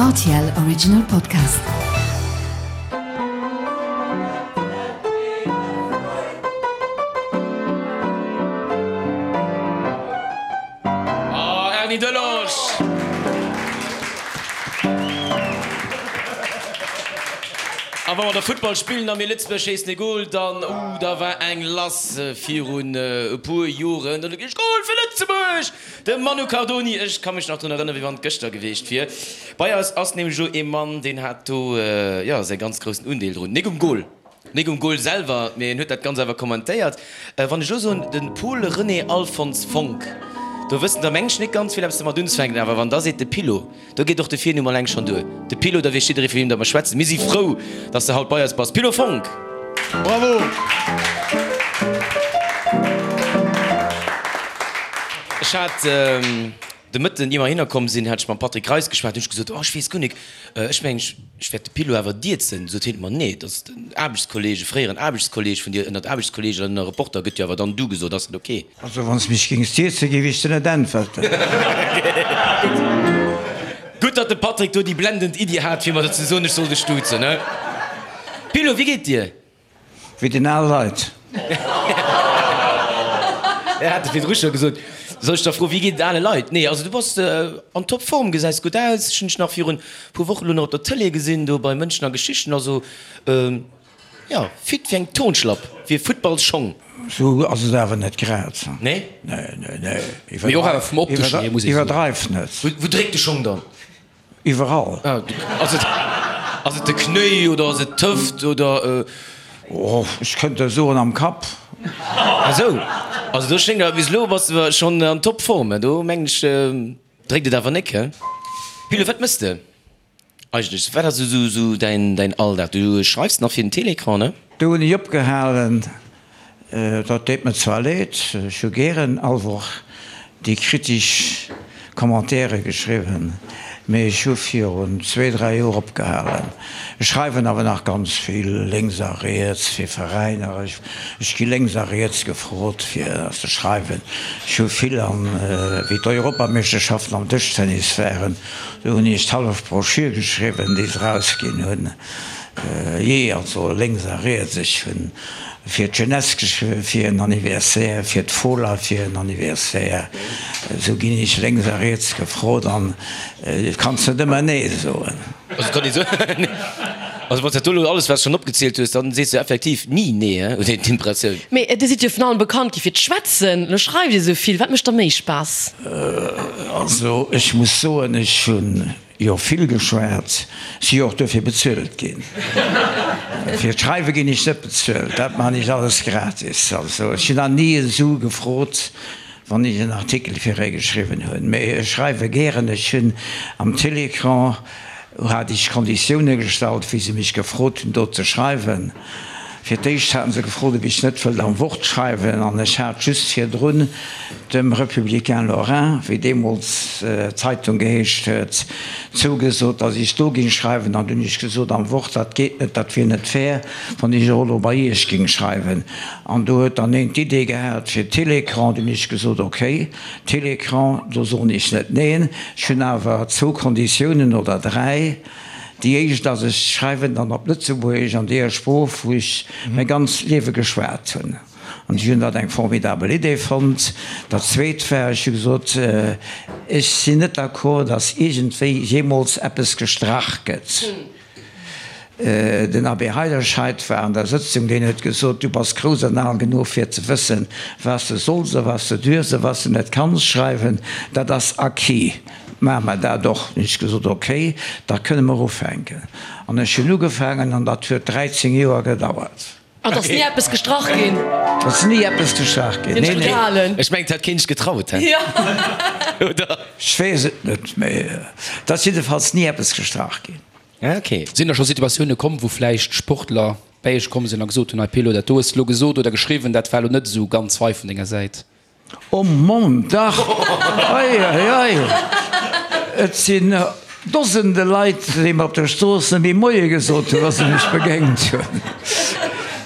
Rtl Original Podcast. Oh, Erny Delage! A wa mer da Futtball spillen a mir Lëtzebuerg schéissen e Gol, dann, uh, da war eng lass virun e puer Joren. Dann hu geheescht, Gol fir Lëtzebuerg! De Manu Cardoni, ech ka mech nach drun erënneren, wéi wann et gëschter geweecht wier. Bei eis ass nämlech elo ee Mann, deen hat do, jo, säi ganz groussen Undeel drun. Nik um Gol, nik um Gol selwer, mee en huet dat Ganzt awer kommentéiert. Wann ech elo soen, de Paul René Alphonse Fonck, do wëssen der meng ech nik ganz vill eppes domat unzefänken, awer wann der seet de Pilo, do geet och de Virnumm alleng schonn duer. De Pilo, da weess jidderee vu wiem datt mer schwätzen. Mir si frou, datt s de haut bei eis bass, Pilo Fonck! Bravo! Ech hat de Mëtten, ier mer hinner komm sinn, hat ech mam Patrick Reis geschwat, hunn ech gesot, oh ech weess guer nik, ech mengen ech wäert de Pilo awer dierzen. Sot hien, ma nee, dat ass den Aarbechtskolleeg, e fréieren Aarbechtskolleeg vun dir, ënnert Aarbechtskolleeg an ënner Reporter gëtt jo awer dann du gesot, ass dat ok? Also wann s mech géings dierzen, géif ech der net äntwerten. Gutt, datt de Patrick do déi blendend Iddi hat, fir mer ze soen, ech soll dech duzen, he? Pilo, wéi geet dir? Wéi den al Leit. Ech hat virdru scho gesot, soll ech da froen, wéi geet et ale Leit? Nee, also du bass an Topform, gesäis gutt aus. Ech hunn dech nach virun e puer Wochen elo nach op der Tëlee gesinn, do bei Mënschen a Geschichten. Also jo, fit wéi eng Turnschlapp, wéi e Futtballsschong. Sou ass et awer net grad. Nee? Nee, nee, nee. Mee och awer vum opteschen hier, muss ee soen. Iwwerdreif net. Wou dréckt de Schong dann? Iwwerall. Ass et, ass et de Knéi oder ass et d'Hëft oder? Oh, ech kënnt der soen, am Kapp. Ah sou, also do schéngt awer bis elo bass de schonn an Topform, do mengen ech dréckt et awer nik, he? Pilo, wat mëss de eigentlech? Wat ass esou esou däin däin Alldag? Du schreifs nach fir den Télécran, ne? Do hunn ech opgehalen. Dat deet mer zwar leed, ech hu gären all Woch déi kritesch Commentaire geschriwwen, mee ech hu virun zwee, dräi Joer opgehalen. Ech schreiwen awer nach ganz vill lénks a riets fir Veräiner. Ech gi lénks a riets gefrot fir ze schreiwen. Ech hu vill an, wéi d'Europameeschterschaften am Dëschtennis waren, do hunn ech d'hallef Broschür geschriwwen, déi se erausginn hunn. Jee, also lénks a riets, ech hunn fir d'Jeunesse geschriwwen fir en Anniversaire, fir d'Fola fir en Anniversaire, esou ginn ech lénks a riets gefrot an et kanns net ëmmer nee soen. Also kann ee soen, also wann s dat do elo alles wat s schonn opgezielt hues, dann sees de effektiv ni nee, he, huet een d'Impressioun. Mee Dir sidd jo vun allem bekannt gi fir d'Schwätzen, elo schreift Dir esou vill, wat mécht der méi Spaass? Also ech muss soen, ech hunn Jo, vill geschwat, si jo och duerfir bezuelt ginn. Fir d'Schreiwe ginn ech net bezuelt, dat man ech alles gratis. Also ech hunn nach ni e Su gefrot, wann ech en Artikel fir ee geschriwwen hunn. Mee ech schreiwe gären. Ech hunn am Télécran hat ech Konditioune gestallt, wéi se mech gefrot hunn do ze schreiwen. Fir d'éischt haten se gefrot, ob ech net wëllt am Wort schreiwen, an ech hat just virdrun dem Républicain Lorrain, wéi deemools d'Zeitung geheescht huet, zougesot, datt ech do ging schreiwen. An dunn hunn ech gesot, am Wort, dat geet net, dat wier net fair, wann ech och elo bei Iech ging schreiwen. An do huet dann een d'Idee gehat fir Télécran. Dunn hunn ech gesot, ok, Télécran, do soen ech net neen. Ech hunn awer zwou Konditiounen oder dräi. Déi éischt ass, ech schreiwen dann op Lëtzebuergesch, an deeër Sprooch, wou ech mäi ganzt Liewe geschwat hunn. An ech hunn dat eng formidabel Idee fonnt. Dat Zweet war, ech hu gesot, ech sinn net d'accord, datt iergendwéi jeemools eppes gestrach gëtt. Den Abbé Heiderscheid war an der Sëtzung, deen huet gesot, du bass grouss an al genuch fir ze wëssen, wat s de solls a wat s de duerfs a wat s de net kanns schreiwen. Dat ass acquis. Maache mer dat och. Hunn ech gesot, ok, da kënne mer ufänken. An ech hunn ugefaangen an dat huet 13 Joer gedauert. An et ass ni eppes gestrach ginn? Et ass ni eppes gestrach ginn, nee, nee. Ech mengen, et hätt keen sech getraut, he? Oder? Ech weess et net, mee et ass jiddefalls ni eppes gestrach ginn. Ok. Sinn da scho Situatioune komm, wou vläicht Sportler bäi iech komm sinn a gesot hunn, hei Pilo, dat do hues de lo gesot oder geschriwwen, dat war lo net esou ganz fei vun denger Säit? Oh Mamm, dach! Ei, ei, ei! Et sinn Dosende Leit, déi mer op der Strooss net méi Moie gesot hunn, wa se mech begéint hunn.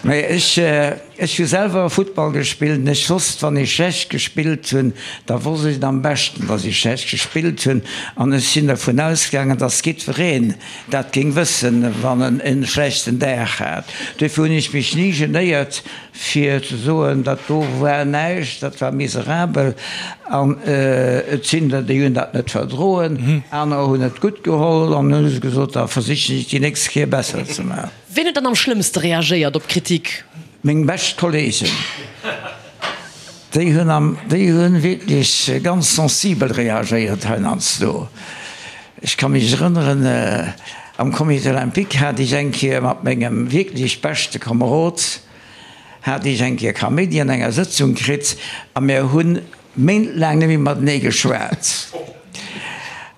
Mee ech, ech hu selwer Futtball gespillt an ech wosst, wann ech schlecht gespillt hunn, da wosst ech et am beschten, datt ech schlecht gespillt hunn. An ech sinn dervun ausgaangen, datt jiddwereen dat géing wëssen, wann en e schlechten Dag hat. Duerfir hunn ech mech ni genéiert, fir ze soen, dat do war näischt, dat war miserabel. An et sinn der, déi hunn dat net verdroen, anerer hunn et gutt geholl an hunn se gesot, da versichen ech déi nächst Kéier besser ze maachen. Ween huet dann am schlëmmste reagéiert op d'Kritik? Meng bescht Kolleegen, déi hunn am, déi hunn wierklech ganz sensibel reagéiert heiansdo. Ech ka mech erënneren, am Comité Olympique hat ech eng Kéier mat mengem wierklech beschte Komerod, hat ech eng Kéier Kaméidi an enger Sëtzung kritt a mir hunn méintlaang net méi matenee geschwat.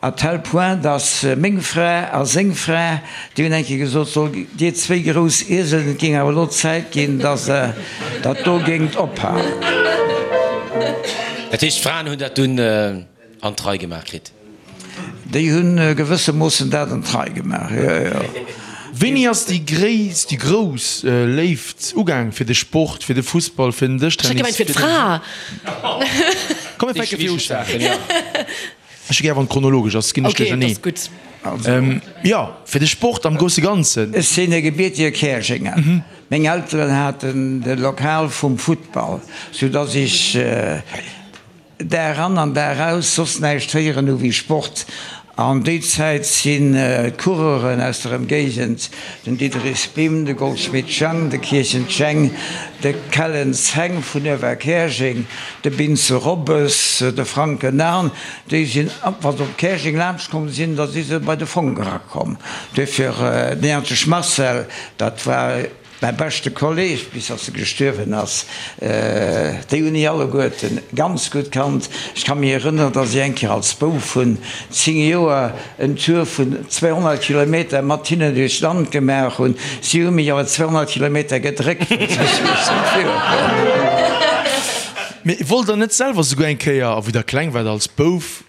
À tel point, datt meng Fra a seng Fra, déi hunn eng Kéier gesot, So, dir zwéi grouss Ieselen, et géing awer elo Zäit ginn, datt Der dat do géingt ophalen. Dat heescht, d'Fraen hunn dat dunn an d'Rei gemaach kritt? Déi hunn gewëssemoossen dat an d'Rei gemaach, jo, jo. Wéini ass déi gréisst, déi grouss Léift ugaang fir de Sport, fir de Fussball, fir den Ech hätt Dëschtennis? gemengt fir d'Fra. Komm mir fänke viru un. Ech hu gär wann et chronologesch ass, ginn ech Ok, dat duercherneen. ass gutt. Jo, fir de Sport am grousse Ganzen. Ech sinn e gebiertege Käerjenger. Meng Elteren haten de Lokal vum Futtball, soudass ech Dag an an Dag aus soss näischt héieren hu wéi Sport. An déi Zäit sinn d'Coureuren aus der Ëmgéigend, den Diderich Bim, de Goldschmidt Jang, de Kirchen Jheng, de Kellens Heng vun Uewerkäerjeng, de Binze Robbes, de Franken Arn, déi sinn, wa se op Käerjeng laanscht komm sinn, da si se bei de Fong erakomm. Duerfir den Erntesch Marcel, dat war. Mäi beschte Kolleg, bis dass e gestuerwen ass, déi hunn ech alleguerten ganz gutt kannt. Ech ka mech erënneren, dass ech eng Kéier als Bouf vun 10 Joer en Tour vun 200 Kilometer mat hinnen duerch d'Land gemaach hunn. Si hu mech awer 200 Kilometer gedréckt, fir dass ech esou virukomm. Mee wollt der net selwer souguer eng Kéier, a wou der kleng waart, als Bouf,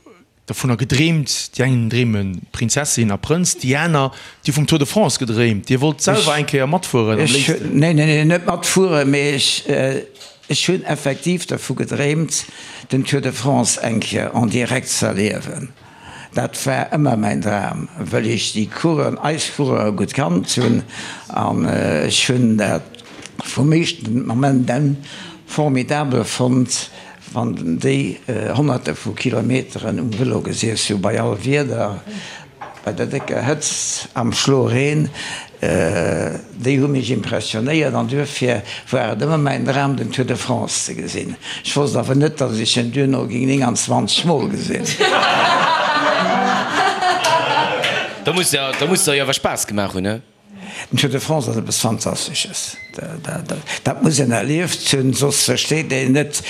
Dovunner gedreemt, déi eng dreeme Prinzessin a Prënz, déi aner, déi hu vum Tour de France gedreemt. Dir wollt selwer eng Kéier matfueren am léifsten? Neen, neen, neen, net matfueren, mee ech, ech hunn effektiv dervu gedreemt, den Tour de France eng Kéier en direct z'erliewen. Dat war ëmmer mäin Dram, wëll ech déi Coureuren, eis Coureure gutt kannt hunn an ech hunn dat vum éischten Moment un formidabel fonnt, Wann déi Honnerte vu Kilometeren um Vëlo gesiess hu, bei all Wieder, bei der décker Hëtzt, am Schloreen, déi hu mech impressionéiert an duerfir war et ëmmer mäin Dram, den Tour de France ze gesinn. Ech wosst awer net, datt ech en duerno géing 29 Mol gesinn. Da muss der jo awer Spaass gemaach hunn, he? Den Tour de France ass eppes Fantastesches. Dat muss een erlieft hunn, soss versteet een net.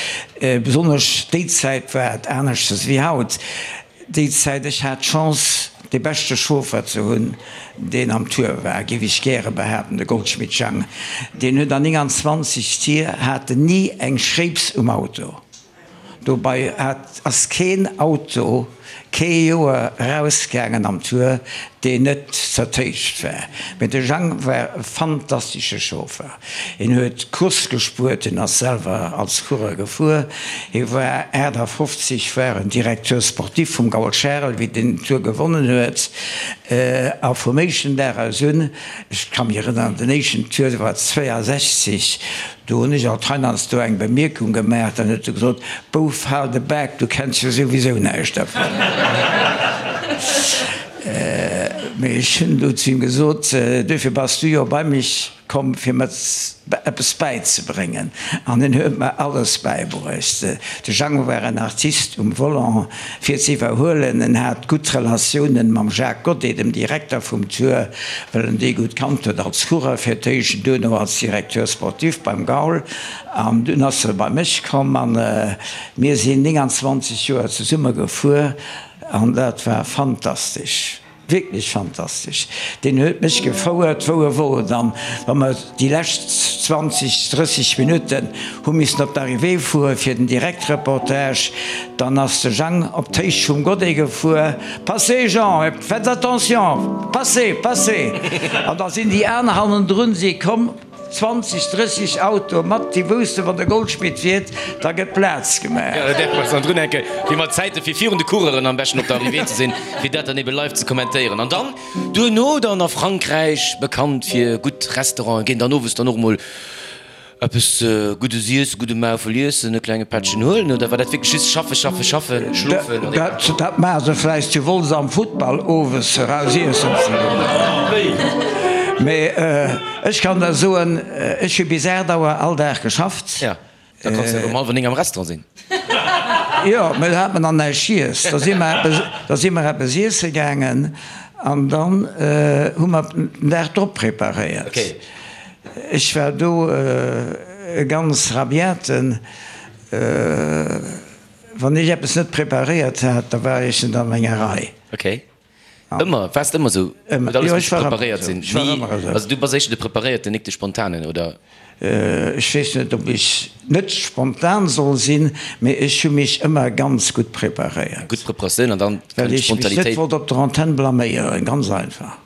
Besonnesch déi Zäit war et aneschters wéi haut. Déi Zäit, ech hat d'Chance, dee beschte Chauffer ze hunn, deen am Tour war, géif ech gäre behaapten, de Goldschmidt Jang. Deen huet an 29 Tier hat en ni eng Schréips um Auto. Dobei hat ass keen Auto kee Joer erausgaangen am Tour, deen net zertéischt war. Mee de Jang war e fantastesche Chauffer. Hien huet Course gespuert, hien ass selwer als Coureur gefuer. Hie war 58, war en Directeur sportif vum Gaul Charel, wéi deen den Tour gewonnen huet. A vum éischten Dag aus un, ech ka mech erënneren, den éischten Tour, dat war 62, Do hunn ech alt heiansdo eng Bemierkung gemaach, dann huet se gesot, Bouf, hal de Bak, du kenns jo souwisou näischt dervun. Mee ech hunn du zu him gesot, Duerfir bass du jo bei mech komm, fir mer eppes bäizebréngen. An en huet mer alles bäibruecht. De Jeannot war en Artist um Volant, fir ze iwwerhuelen. En hat gutt Relatiounen mam Jacques Goddet, dem Direkter vum Tour, well en dee gutt kannt huet als Coureur fir d'éischt, duerno als Directeur sportif beim Gaul. An dunn ass e bei mech komm a mir sinn 29 Joer zesumme gefuer an dat war fantastesch. Wierklech fantastesch. Deen huet mech gefouert wou e wollt an wa mer déi lescht 20, 30 Minutten hu missen op d'Arrivée fuere fir den Direktreportage, dann ass de Jang op d'Héicht vum Godet gefuer, Passez Jean, faites attention, passez, passez! An da sinn déi aner hannendrun si komm. 20, 30 Autoe mat, déi woussten, wann de Goldschmidt fiert, da gëtt Plaz gemaach. Jo, da däerfe mer eis dann drunhänken, fir mat Zäite fir virun de Coureuren am beschten op der Arrivée ze sinn, fir dat dann ebe live ze kommentéieren. An dann duerno dann a Frankräich, bekannt fir gutt Restauranten, ginn dann owes dann och emol Eppes Guddes iessen, gudde Maufel iessen, e klenge Pättchen huelen, oder war dat wierklech just schaffen, schaffen, schaffen, schlofen an egal? Dat maache se vläicht zu Wolz am Futtball, owes eraus iessen ze goen. Mee ech kann der soen, ech hu bis 8 Auer all Dag geschafft. Jo, da kanns de jo um hallwer 9 am Restaurant sinn. Jo, mee do hat mer nach näischt giess. Da si mer eppes, da si mer eppes iesse gaangen an dann hu mer den Dag drop preparéiert. Ech war do e ganz rabiaten. Wann ech eppes net preparéiert hat, da war ech net an menger Rei. Ok. Ëmmer? Waars de ëmmer esou? Huet alles missen preparéiert sinn? Ech war ëmmer esou. Also du bass éischter de Preparéierten, nik de Spontanen, oder? Ech weess net, ob ech net spontan soll sinn, mee ech hu mech ëmmer ganz gutt preparéiert. Gutt Preparatioun an dann kënnt d'Spontanitéit. Well ech mech net wollt op der Antenn blaméieren, ganz einfach.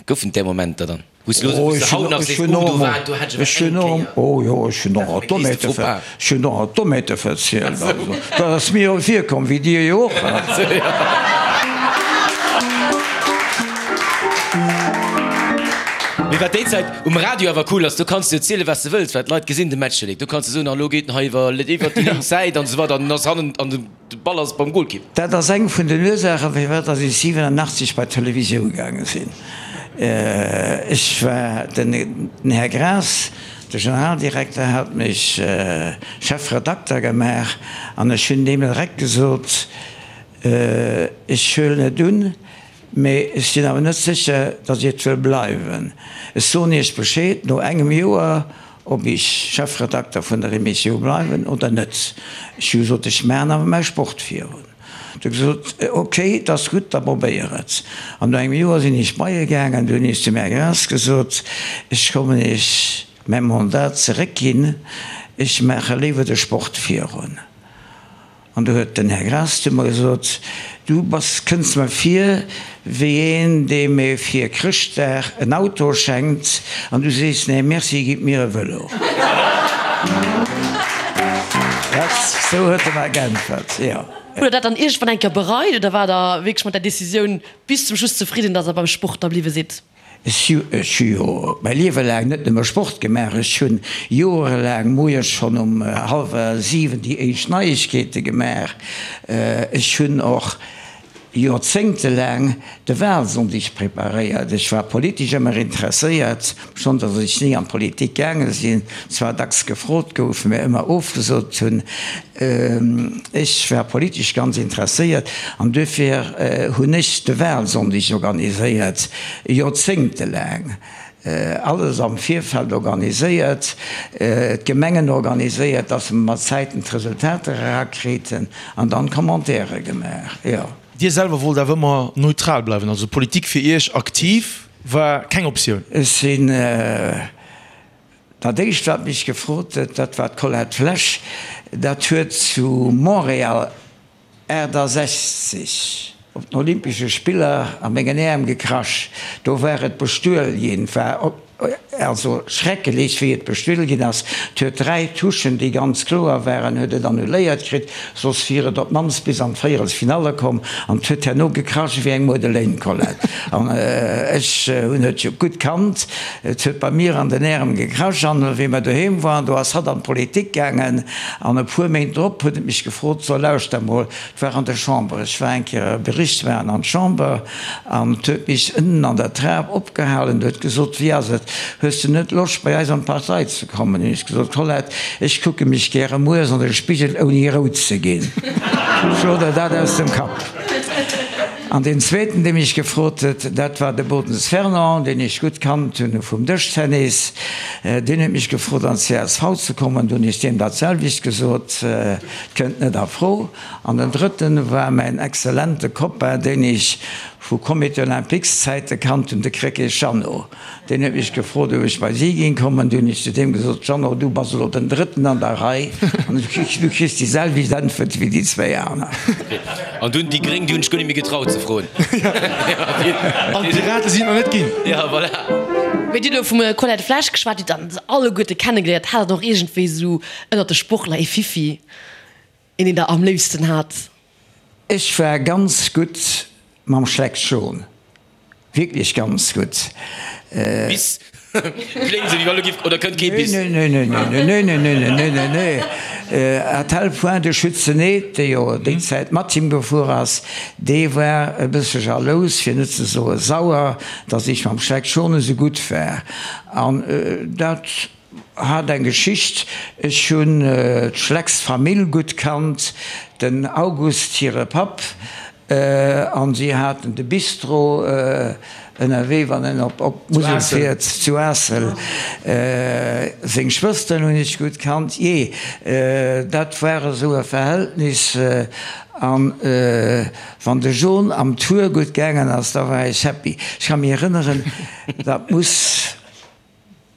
Goufen et där Momenter dann? Wou s du elo wou s du haut nach sees, oh do war, do hat ech awer eng Kéier. Oh jo, ech hunn och alt Dommheete ver, ech hunn och alt Dommheete verzielt. Also dat ass mir jo virkomm, wéi dir jo och. Mee wat déi Zäit um Radio awer cool ass, do kanns du erzielen, wat s de wëlls, well d'Leit gesinn de Match jo nik. Do kanns du soen, an elo geet en hei iwwer iwwer déi lénks Säit an esou weider an en ass hannen an de. De Ball ass beim Golkipp. Dat ass eng vun den Ursaachen, firwat dass ech 87 bei d'Televisioun gaange sinn. Ech war, den Här Graas, de Generaldirekter, hat mech Chefredakter gemaach an ech hunn deem direkt gesot, ech huelen et un, mee ech sinn awer net sécher, dass ech et wëll bleiwen. Ech soen Iech Bescheed no engem Joer, Ob ech Chefredakter vun der Emissioun bleiwen oder net. Ech hu gesot, ech maachen awer mäi Sport virun. Huet e gesot, ok, et ass gutt, da probéier et. An no engem Joer sinn ech bei e gaangen, du hunn ech zum Här Graas gesot, ech kommen Iech mäi Mandat zeréckginn, ech maache léiwer de Sport virun. An du huet den Här Graas zu mer gesot, Du bass, kënns mer vir wéi een, deem ee fir Chrëschtdag en Auto schenkt, an du sees, Nee, merci, gitt mir e Vëlo. Dat, sou huet e mer geäntwert, jo. Hutt Der dat dann iergendwann eng Kéier bereit oder waart Der wierklech mat der Decisioun bis zum Schluss zefridden, datt Der beim Sport da bliwwe sidd? Ech hu jo mäi Liewe laang net nëmme Sport gemaach, ech hunn joerelaang moies schonn um hallwer 7 déi éischt Neiegkeete gemaach, ech hunn och joerzéngtelaang de Wahlsonndeg preparéiert. Ech war politesch ëmmer interesséiert, schonn datt ech ni an d'Politik gaange sinn, zwar dacks gefrot gouf, mä ëmmer ofgesot hunn. Ech war politesch ganz interesséiert an duerfir hunn ech de Wahlsonndeg organiséiert, joerzéngtelaang, alles am Virfeld organiséiert, d'Gemengen organiséiert, dass mer mat Zäiten d'Resultater erakriiten an dann Commentaire gemaach, jo. Dir selwer wollt awer ëmmer neutral bleiwen, also Politik fir Iech aktiv war keng Optioun? Ech sinn. Dat éischt wat mech gefrot huet, dat war d'Colette Flesch. Dat huet zu Montréal 68 op den Olympesche Spiller a mengen Äerm gekrasch. Do war et bestuel ginn. War also schreckelech wéi et bestuel ginn ass. Et huet 3 Touchen déi ganz kloer waren, huet et annuléiert kritt, soss wier et op d'mannst bis an d'Véierelsfinalle komm. An et huet herno gekrasch wéi eng Muedelein, Colette. An ech hunn et jo gutt kannt. Et huet bei mir an den Ärem gekrasch an wéi mer doheem waren, do ass hatt an d'Politik gaangen an e puer Méint drop huet et mech gefrot, so lauschter mol, et war an der Chamber, ech war eng Kéier e Bericht maachen an d'Chamber an et huet mech ënnen an der Trap opgehalen, huet gesot, wéi ass et, hues de net Loscht bei eis an d'Partei ze kommen? Hunn ech gesot, Colette, ech kucke mech gäre mueres an de Spigel ouni rout ze ginn, schlo der dat aus dem Kapp. An deen zweeten, dee mech gefrot huet, dat war de Bodens Fernand, deen ech gutt kannt hunn vum Dëschtennis. Deen huet mech gefrot, an d'CSV ze kommen. Du hunn ech deem dat selwecht gesot, Et kënnt net a Fro. An den drëtten war mäin exzellente Copain, deen ech vu Comité Olympiques-Zäite kannt hunn, de Krecké Jeannot. Deen huet mech gefrot, ob ech bei si géing kommen. Du hunn ech zu deem gesot, Jeannot, du bass elo den Drëtten an der Rei an du kriss déi selwecht Äntwert wéi déi zwéi aner. An dunn déi Gréng, déi hunn sech guer net méi getraut ze froen. An d'Pirate sinn et nach net ginn. Ja, voilà. Mee Dir hutt elo vum Colette Flesch geschwat, Dir hutt dann se alleguerte kennegeléiert. Hat Der och iergendwéi esou ënnert de Sportler ee Fiffi, een deen Der am léifsten hat? Ech war ganz gutt mam Schleck Schon. Wierklech ganz gutt. Bis? Kléngt esou, wéi wa lo giff, oder kënnt kee Bis? Nee, nee, nee, nee, nee, nee, nee, nee, nee, nee, nee. À tel point, de Schützen Neth, dee jo déi Zäit mat him gefuer ass, dee war e bësse jalous, fir net ze soe sauer, datt ech mam Schleck Schon esou gutt war. An dat hat eng Geschicht, Ech hunn d'Schlecks Famill gutt kannt, den August hire Papp, An si haten de Bistro ënnerwee, wann en op d'Musel fiert, zu Aassel. Seng Schwësteren hunn ech gutt kannt. Jee, dat war esou e Verhältnis. An wann de John am Tour gutt gaangen ass, da war ech happy. Ech ka mech erënneren, dat muss.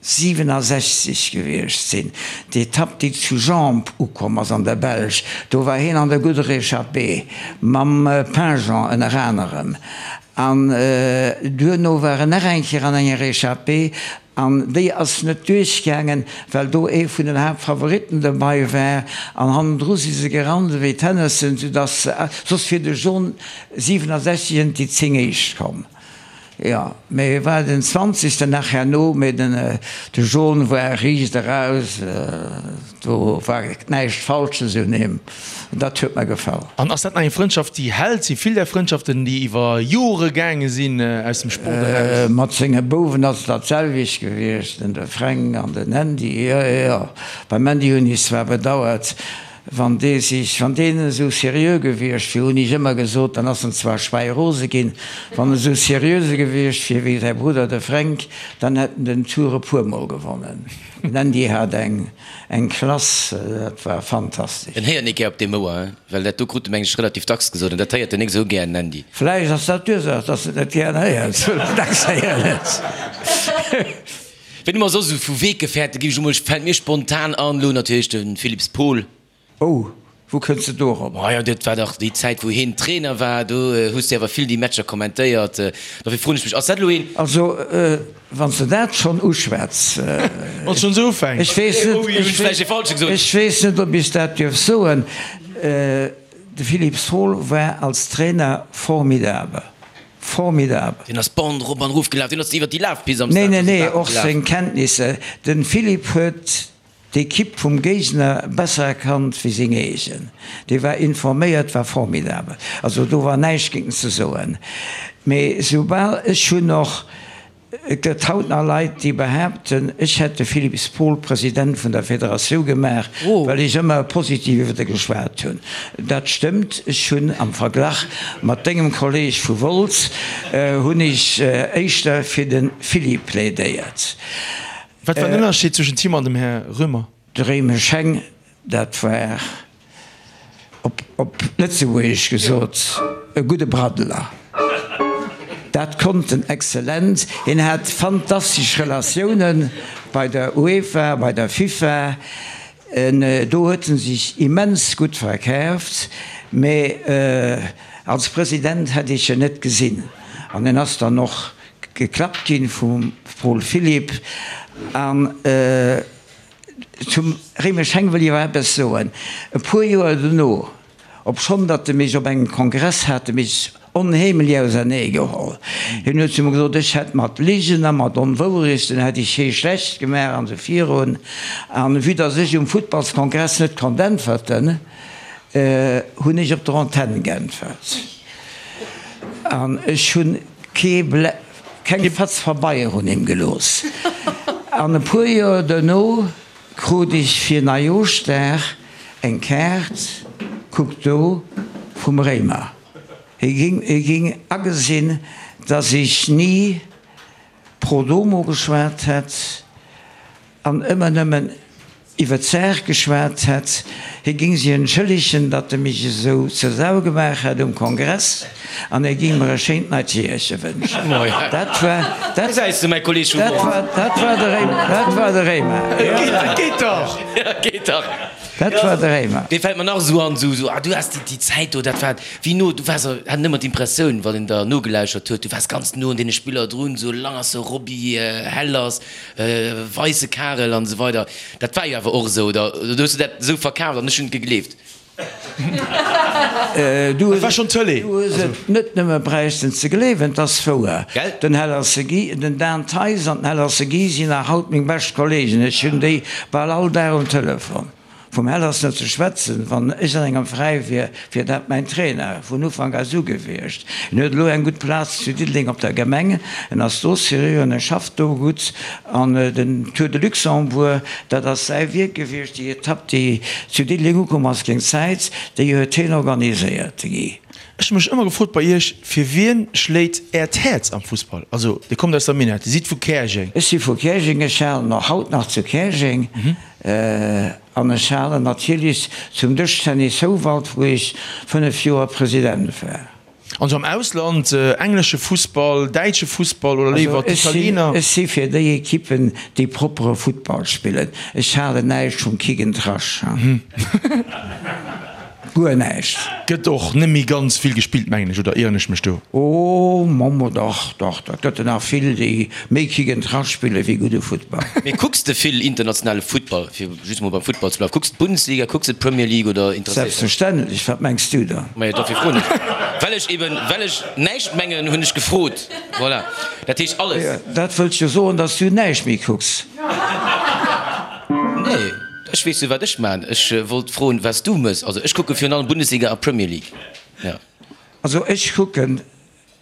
67 gewiescht sinn. D'Etapp déi zu Jambes ukomm ass an der Belsch, do war hien an der gudder Echappée mam Pingeon ënner anerem. An duerno war en nach eng Kéier an enger Echappée an déi ass net duerchgaangen, well do ee vun den Haaptfavoritten dobei war an hannendru si se gerannt ewéi d'Hennessen, soudass se, soss wier de John 67 ënnert déi 10 éischt komm. Jo, mee e war den zwanzegsten nach herno, mee den de John war riicht eraus, do war näischt Falsches un him, dat huet mer gefall. An ass dat nach eng Frëndschaft déi hält? Si vill där Frëndschaften déi iwwer Jore gaange sinn aus dem Sport eraus? Mat senge Bouwen ass et dat selwecht gewiescht, den de Fränk an den Andy, jo jo. Beim Andy hunn ech zwar bedauert, Wann dee sech, wann deen esou seriö gewiescht wier, hunn ech ëmmer gesot, dann ass en zwar schwäirose ginn, wann en esou seriöse gewiescht wier wéi säi Brudder de Fränk, dann hätt en den Tour e puermol gewonnen. Den Andy hat eng, eng Klass, dat war fantastesch. En héiert nik gär op deem Ouer, hein? Well dat do krut e meng ech relativ dacks gesot, an dat héiert en nik esou gär, den Andy. Vläicht ass dat d'Ursaach, dass en et net gären héiert, well en dacks héieren huet. Ween hu mer soss esou vu Weggefährte gi ech emol, fält mir spontan an, elo natierlech de Philips Paul. Oh, wou kënns de dorop? Majo, dat war dach déi Zäit wou heen Trainer war, do hues de awer vill déi Matcher kommentéiert. Dofir froen ech mech, ass dat elo een. Also, wann s de dat schonn uschwätz. Wann s schonn esou ufänks. Ech weess net, ech weess net, ob ech dat dierf soen, de Philips Paul war als Trainer formidabel. Formidabel. Deen ass d'Bande rop an erof gelaf, deen ass iwwer déi Lafpist am Stade. Nee, nee, nee, och seng Kenntnisser. De Philippe huet d'Ekipp vum Géigner besser erkannt wéi seng eegen. Dee war informéiert, war formidabel. Also do war näischt géint en ze soen. Mee soubal, ech hunn och Et gëtt haut nach Leit, déi behaapten, ech hätt de Philippe Spohl President vun der Federatioun gemaach, well ech ëmmer positiv iwwer e geschwat hunn. Dat stëmmt, ech hunn am Verglach mat dengem Kolleeg vu Wolz, hunn ech éischter fir de Philippe plädéiert. Wat war den Ënnerscheed zwëschent him an dem Här Römer? De Réimesch Heng, dat war. Op Lëtzebuergesch gesot, e gudde Braddeler. Dat konnt en exzellent. Hien hat fantastesch Relatioune bei der UEFA, bei der FIFA. Do huet en sech immens gutt verkaaft. Mä als President hätt ech en net gesinn. An en ass dann och geklappt ginn vum Paul Philipp. An. Zum Réimesch Heng wëll ech awer eppes soen. E puer Joer dono, obschonn datt e mech op engem Kongress hat e mech onheemlech ausernee geholl. Hien huet zu mer gesot, ech hätt mat Ligen a mat Onwourechten hätt ech hee schlecht gemaach an esou virun. An vue datt ech um Futtballskongress net konnt äntwerten, hunn ech op der Antenn geäntwert. An ech hunn kee. Keng Fatz Pabeier un him gelooss. An e puer Joer duerno krut ech fir Neijooschdag eng Kaart, kuck do, vum Réimer. Hie ging agesinn, dass ech ni pro domo geschwat hätt an ëmmer nëmmen iwwer d'Saach geschwat hätt. Hie géing sech entschëllegen, datt e mech esou zur Sau gemaach hätt um Kongress an e géing mer e schéint neit Jeeërche wënschen. Dat war, dat, dat war, dat war de Réimer. Dat war de Réimer. Geet dach! Geet dach! Dat war de Réimer. Dee fält mer nach esou an, esou, ah, du has déi, déi Zäit do, dat war wéi no, du waars, hat en ëmmer d'Impressioun, wann een der nogelauschert huet, du waars ganz no un deene Spiller drun, esou Langerse Roby, Hellers, Weisse Karel an esou weider. Dat war jo awer och esou, oder hues du dat esou verkaaft an ech hunn et gegleeft? Du Dat war schonn d'Tëlee. hues et net nëmme bräichten ze gleewen, 't ass wouer. Gell? Den Hellerse Guy, den Dan Theis an den Hellerse Guy sinn nach haut meng bescht Kollegen. Ech hunn déi bal all Dag um Telefon. Vum Hellers net ze schwätzen, wann ech an engem Veräi wier, wier dat mäin Trainer vun Ufank aus u gewiescht. En huet elo eng gutt Plaz zu Diddeleng op der Gemeng, en ass do seriö an e schafft do gutt. An den Tour de Luxembourg, dat ass säi Wierk gewiescht, déi Etapp, déi zu Diddeleng ukomm ass géint Zäit, déi huet hien organiséiert, de Guy. Ech hu mech ëmmer gefrot bei Iech, fir wien schléit Äert Häerz am Fussball? Also, Dir kommt aus der Minett, Dir sidd vu Käerjeng. Ech si vu Käerjeng, ech halen och haut nach zu Käerjeng. An ech halen natierlech zum Dëschtennis Houwald, wou ech 5 Joer President war. An sou am Ausland, englesche Fussball, däitsche Fussball oder léiwer d'Italiener? Ech si fir déi Ekippen, déi proppere Futtball spillen. Ech halen näischt vum Kick and Rush. Guer näischt. Gëtt och net méi ganz vill gespillt, mengen ech, oder ieren ech mech do? Oh, Mommo, dach, dach, dat gëtt der nach vill, déi méi Kick and Rush spille wéi gudde Futtball. Mee kucks de vill internationale Futtball, fir just mol beim Futtball ze bleiwen? Kucks de d'Bundesliga, kucks de d'Premier League oder interesséiert dech? Selbstverständlech, wat mengs du dann? Majo, dofir froen ech. Well ech eben, well ech näischt mengen, hunn ech gefrot. Voilà, dat heescht alles. Dat wëllt jo soen, datt s du näischt méi kucks. Nee. Ech weess jo wat ech maan. Ech wollt froen was du mëss. Also ech kucke virun allem Bundesliga a Premier League. Jo. Also ech kucken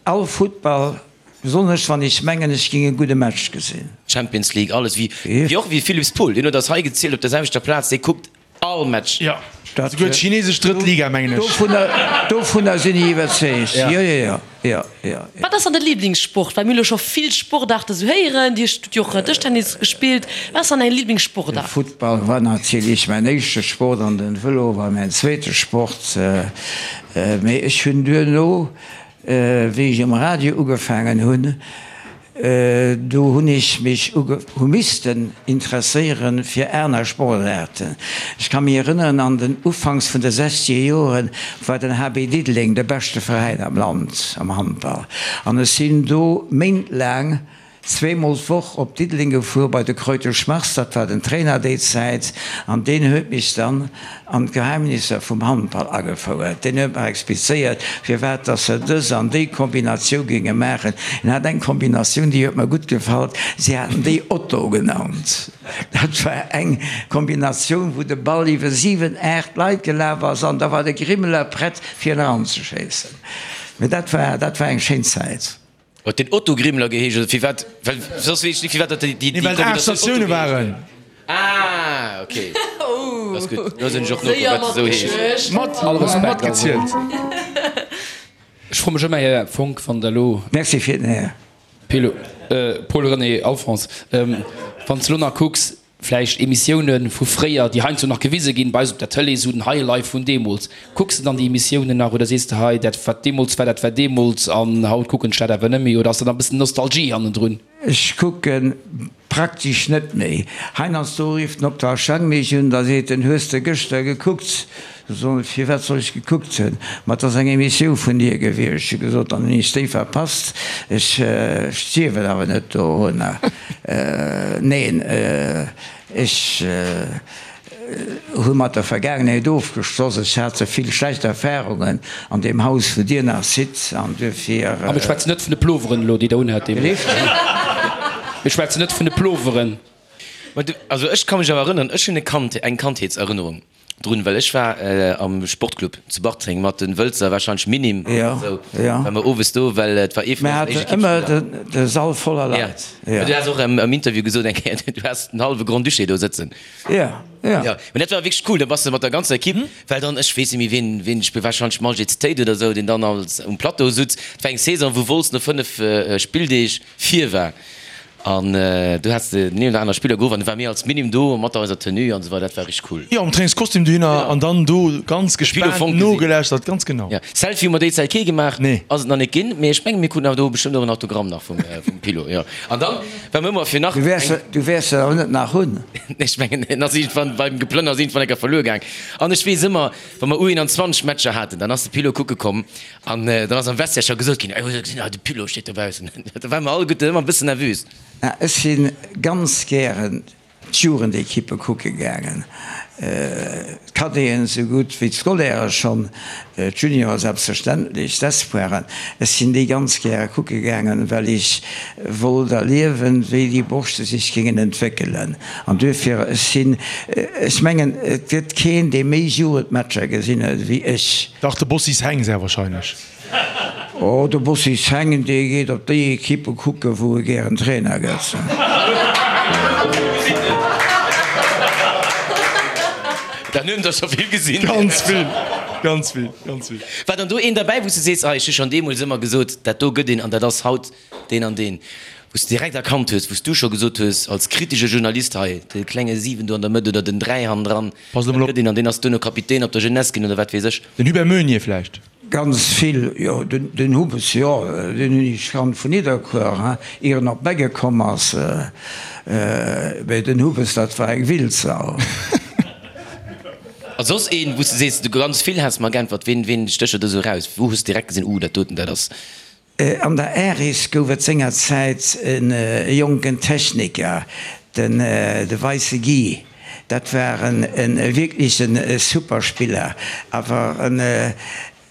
all Futtball, besonnesch wann ech mengen ech ging e gudde Match gesinn. Champions League alles wéi wéi och wéi Philips Pool, deen huet eis hei gezielt op der selwechter Plaz, dee kuckt all Match. Jo, souguer d'chinesesch drëtt Liga mengen ech. Dovunner dovunner sinn ech iwwerzeegt. Jo jo jo. Jo, jo, jo. Wat ass dann de Liblingssport? Well mir hu lo scho vill Sportaarte sou héieren. Dir hutt jo och Dëschtennis gespillt. Wat ass dann däi De Liblingssportaart? Futtball war natierlech mäin éischte Sport an den Vëlo war mäin zweete Sport. Mee ech hunn duerno, wéi ech um Radio ugefaangen hunn, Do hunn ech mech hu missten interesséieren fir aner Sportaarten. Ech ka mech erënneren, an den Ufanks vun de sechzeger Joren war den HB Diddeleng de beschte Veräin am Land am Handball. An ech sinn do méintlaang zweemol d'Woch op Diddeleng gefuer bei de Kreutesch Mars, dat war den Trainer déi Zäit, an deen huet mech dann an d'Geheimnisser vum Handball agefouert. Deen huet mer explizéiert, firwat dass se dës an déi Kombinatioun géinge maachen. En hat eng Kombinatioun, déi huet mer gutt gefall, si haten déi Otto genannt. Dat war eng Kombinatioun, wou de Ball iwwer 7, 8 Leit gelaf ass an da war de Grimmeler prett, fir en eranzeschéissen. Mee dat war, dat war eng schéin Zäit. Huet deen Otto Grimler geheescht oder firwat? Well soss weess ech net firwat dat déi déi Nee, well et 8 Statioune waren. Ah ok, ass gutt. Lo sinn ech och nokomm wat se esou heescht. Mat All Respekt, matgezielt. Ech froe mech ëmmer, Här Fonck, wann Der elo. Merci fir den Här. Pelo, Paul-René Alphonse, wann s de elo nach kucks, Vläicht Emissiounen vu fréier, déi heiansdo nach gewise ginn bei eis op der Tëlee, esou den Highlife vun deemools. Kucks de dann déi Emissiounen nach oder sees de, hei dat wat deemools war, dat war deemools an haut kucken ech dat awer net méi? Oder ass da nach e bëssen Nostalgie hannendrun? Ech kucke praktesch net méi. Heiansdo rifft den Octave Schang mech un, da seet en, Hues de gëschter gekuckt? Da soen ech, Firwat soll ech gekuckt hunn? Ma et ass eng Emissioun vun dir gewiescht. Ech hu gesot, Dann hunn ech déi verpasst. Ech stierwen awer net dorunner. Neen, ech hu mat der Vergaangenheet ofgeschloss. Ech hat ze vill schlecht Erfarungen an deem Haus, wou Dir nach sidd, an duerfir. A mir schwätzen net vun de Ploveren elo, déi Der unhat deemools. Mir schwätzen net vun de Ploveren. Also ech ka mech awer erënneren, ech hunn e Kand, eng Kandheetserënnerung drun, well ech war am Sportclub zu Bartreng mat den Wëlzer, wahrscheinlech Minim oder esou, war mer owes do, well et war ee vun eisen éischte Ekippspiller. Mir haten ëmmer de Sall voller Leit. Jo, du has och am Interview gesot eng Kéier, du has den hallwe Grand-Duché do sëtzen. Jo, jo. Jo, mä dat war wierklech cool, da bass de mat der ganzer Ekipp, well dann, ech weess net méi wien, wien, ech wahrscheinlech Maljet Tate oder esou, deen dann als um Plateau sutz. Et war eng Saison, wou Wolz no 5 Spilldeeg vir war. An du has den een oder aner Spiller geruff an du war mir als Minim do mat eiser Tenue an esou weider. Dat war richteg cool. Jo, am Trainingskostüm dohinner an dann do ganz gespaant nogelauschtert, ganz genau. Jo, Selfie hu mer déi Zäit kee gemaach, ass et nach net ginn, mee ech mengen mir kruten awer do bestëmmt och en Autogramm nach vum Pilo. Jo, an dann war mir ëmmer fir nach Du wäers eng. du wäers se awer net nach hunn. Ech mengen en ass iergendwann beim Geplënners iergendwann eng Kéier verluer gaang. An ech weess ëmmer, wa mer U21 Matcher haten, dann ass de Pilo kucke komm An dann ass am Vestiaire scho gesot ginn, Ey, gesinn, ah, de Pilo steet dobaussen. Da ware mer alleguerten ëmmer e bëssen nervös. Ech si ganz gären d'Jugendekippe kucke gaangen, d'Cadeten esou gutt wéi d'Scolairë schonn, d'Juniore selbstverständlech, d'Espoiren. Ech sinn déi ganz gäre kucke gaangen, well ech wollt erliewen, wéi déi Borschte sech géingen entwéckelen. An duerfir, ech sinn, ech mengen, et gëtt keen, dee méi Jugendmatcher gesinn huet wéi ech. Dach, de Bossis Heng sehr wahrscheinlech. Oh, de Bossis Heng, dee geet op déi Equippe kucken, wou e gären Trainer gëtt. Dann hunn der scho vill gesinn. Ganz vill, ganz vill, ganz vill. War dann do een derbäi, wou s de sees, ah, ech hu schonn deemools ëmmer gesot, dat do gëtt een an dat ass haut deen an deen, wou s de direkt erkannt hues, wou s du scho gesot hues als kritesche Journalist, hei, de klenge 7 do an der Mëtt oder den 3 hannendran, Pass elo mol op. Dat gëtt een an deen ass duerno Kapitän op der Jeunesse ginn oder wat weess ech. Den Hubert Meunier vläicht? Ganz vill, jo. Den Hubbes, jo, deen hunn ech kannt vun Nidderkuer, hein, ier en op Beggen komm ass. Mee den Hubbes, dat war eng Wildsau. A soss een, wou s de sees, du ganz vill häss mer geäntwert, ween, ween stécht der do esou eraus? Wou hues de direkt gesinn, uh, dat doten, dat ass. An der Aris gouf et sengerzäit e jonken Techniker, den de Weisse Guy. Dat war e wierkleche super Spiller, awer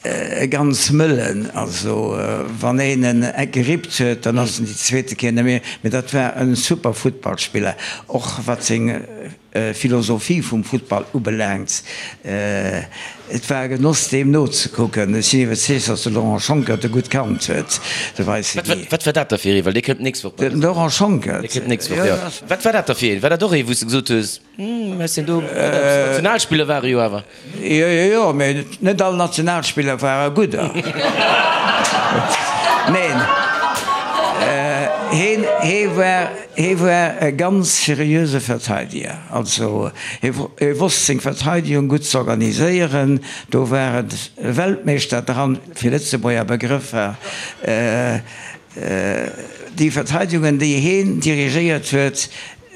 e ganz mëllen. Also wann een en gerippt huet, dann ass en déi zweete Kéier net méi. Mee dat war e super Futtballspiller, och wat seng Philosophie vum Futtball ubelaangt. Et war e Genoss deem nozekucken. Ech sinn iwwerzeegt, datt de Laurent Schonckert e gutt kannt huet, de Weisse Guy. Wat war dat da fir ee? Well dee kënnt d'nächst Woch bei eis. Den Laurent Schonckert? Dee kënnt d'nächst Woch, jo. Wat war dat da fir een? War dat och ee wou s de gesot hues, Hm, ech sinn do, Nationalspiller war e jo awer. Jo, jo, jo, mee net all Nationalspiller ware gudder. Neen, heen, hee war, hee war e ganz seriöse Verteidiger. Also hee, hee wosst seng Verteidigung gutt z'organiséieren. Do war et e Weltmeeschter dran, fir Lëtzebuerger Begrëffer. Déi Verteidigungen, déi heen dirigéiert huet,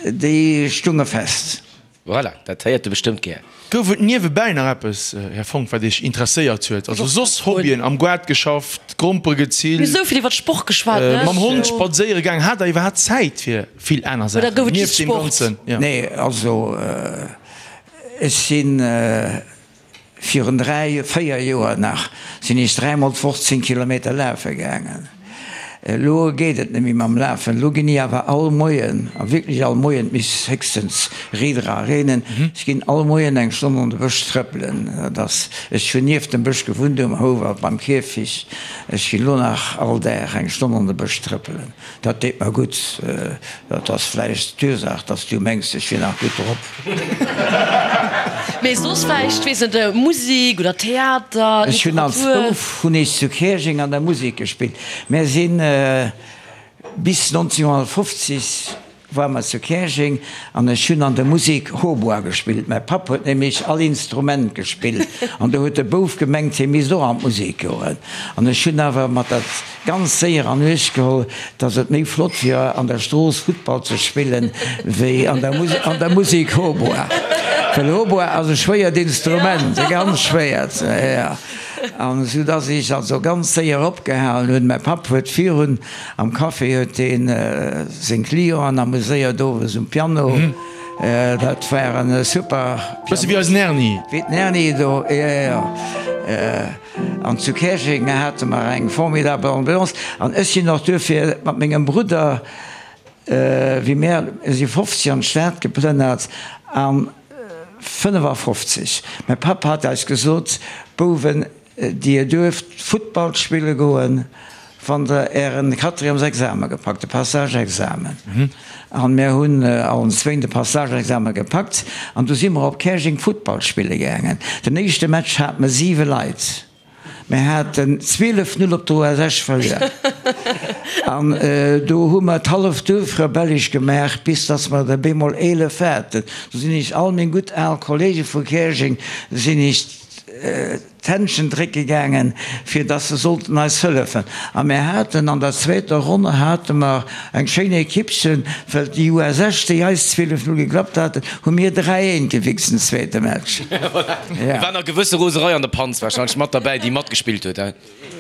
déi stunge fest. Voilà, dat héiert de bestëmmt gär. Gouf et niewebäi nach eppes, Här Fonck, wat Iech interesséiert huet? Also soss Hobbyen, am Goart geschafft, Grompere Mir hu gezillt, sou vill iwwer Sport geschwat, ne? mam Hond spadséiere gaang. Hat Der iwwerhaapt Zäit fir vill aner Oder Saachen gouf et just nieft deem Sport? Ganzen? Jo. Nee, also ech sinn Virun 3, 4 Joer nach sinn ech dräimol d'Woch 10 Kilometer lafe gaangen. Elo geet et net méi mam Lafen. Elo ginn ech awer all Moien, a wierklech all Moien, et misst héchstens Reeder a reenen, ech ginn all Moien eng Stonn an de Bësch trëppelen. Dat ass, ech hunn nieft dem Bësch gewunnt um Houwald beim Kierfich. Ech ginn elo nach all Dag eng Stonn an de Bësch trëppelen. Dat deet mer gutt. Dat ass vläicht d'Ursaach, dass du mengs, ech wier nach gutt drop. Mee soss vläicht, weess net, Musik oder Theater, Ech hunn als Literatur? Bouf hunn ech zu Käerjeng an der Musek gespillt. Mär sinn bis 1950 War mer zu Käerjeng an ech hunn an der Musek Hautbois gespillt. Mäi Papp huet nämlech all Instrument gespillt an do huet de Bouf gemengt, hie misst och an d'Musek goen. An ech hunn awer mat dat ganz séier an Uecht geholl, dass et méi flott wier an der Strooss Futtball ze spillen, wéi an der an der Musek Hautbois. Well Hautbois ass e schwéiert Instrument, e ganz schwéiert, jo. An esou dass ech also ganz séier opgehalen hunn. Mäi Papp huet virun Am Café huet deen seng Clienten amuséiert, owes um Piano. Dat war en super Pianist. Bësse wéi eisen Erni. Wéi den Erni do, jo, jo. An zu Käerjeng hate mer eng formidabel Ambiance. An ech sinn och duerfir mat mengem Brudder, wéi mär si 50 an d'Stad geplënnert an 55. Mäi Papp hat eis gesot, Bouwen, Dir duerft Futtball spille goen, wann der ären Quatrièmesexamen gepackt, de Passage-Examen. An mär hunn allen zwéin de Passage-Examen gepackt an du si mer op Käerjeng Futtball spille gaangen. Den éischte Match hate mer 7 Leit. Mir haten 12, 0 op der US Esch verluer. An do hu mer d'halleft Duerf rebellesch gemaach, bis dass mer der bemol 11 haten. Do sinn ech all meng gutt al Kollege vu Käerjeng sinn ech d'Händschen drécke gaangen, fir dass se sollten eis hëllefen. A mir haten an der zweeter Ronn hate mer eng schéin Ekippchen, well déi US Esch, déi eis 12, 0 geklappt haten, hu mir 3, 1 gewichst den zweete Match. Ja. War nach gewësse Roserei an der Panz wahrscheinlech mat derbäi, déi matgespillt huet, he?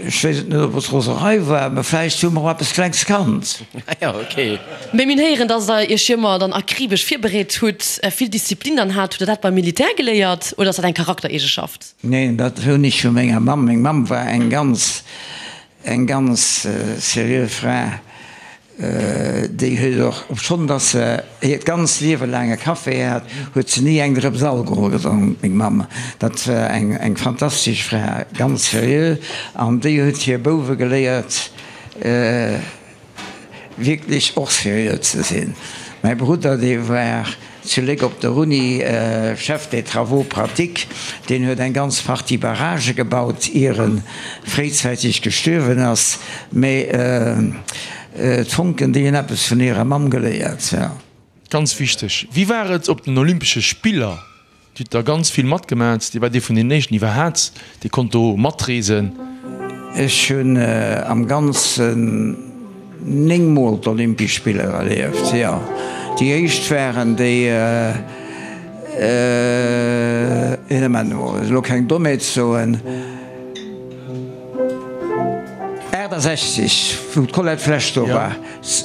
Ech weess et net, ob et Roserei war, mä vläicht hu mer och eppes Klengs kannt. Ah jo, ok. Mee mir héieren, dass der iech jo ëmmer dann akribesch virbereet hutt, vill Disziplin dann hat. Hutt der dat beim Militär geléiert oder ass dat eng Charaktereegeschaft? Neen, dat hunn ech vu menger Mamm. Meng Mamm war eng ganz, eng ganz seriö Fra. Déi huet och, obschonn dass se hiert ganzt Liewe laang e Café hat, huet se ni eng Drëps Alkohol gedronk, meng Mamm. Dat war eng, eng fantastesch Fra, ganz seriö. An déi huet hir Bouwe geléiert, wierklech och seriö ze sinn. Mäi Brudder, dee war zu Léck op der Uni Chef des travaux pratiques, deen huet eng ganz Partie Barragë gebaut, ier e fréizäiteg gestuerwen ass. Mee d'Fonken, déi hunn eppes vun hirer Mamm geléiert, jo. Ganz wichteg, Wéi war et op den Olympesche Spiller? Dir hutt der ganz vill matgemat, Dir waart ee vun den éischten iwwerhaat, dee konnt do matreesen. Ech hunn am Ganzen 9 mol d'Olympesch Spiller erlieft, jo. Déi éischt waren déi, een Moment emol, elo keng Dommheet soen, 68, wou d'Colette Flesch do war.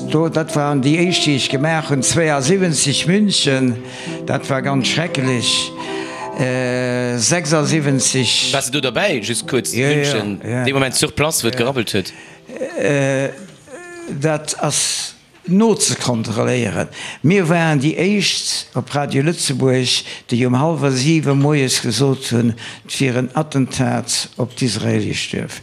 Do, dat waren déi éischt, déi ech gemaach hunn. 72 München, dat war ganz schrecklech. 76. Waars de do derbäi, just kuerz, München, dee Moment sur place, wou et gerabbelt huet? Dat ass nozekontrolléieren. Mir waren déi éischt op Radio Lëtzebuerg, déi um hallwer siwe moies gesot hunn, et wier en Attentat op d'israeelesch Duerf.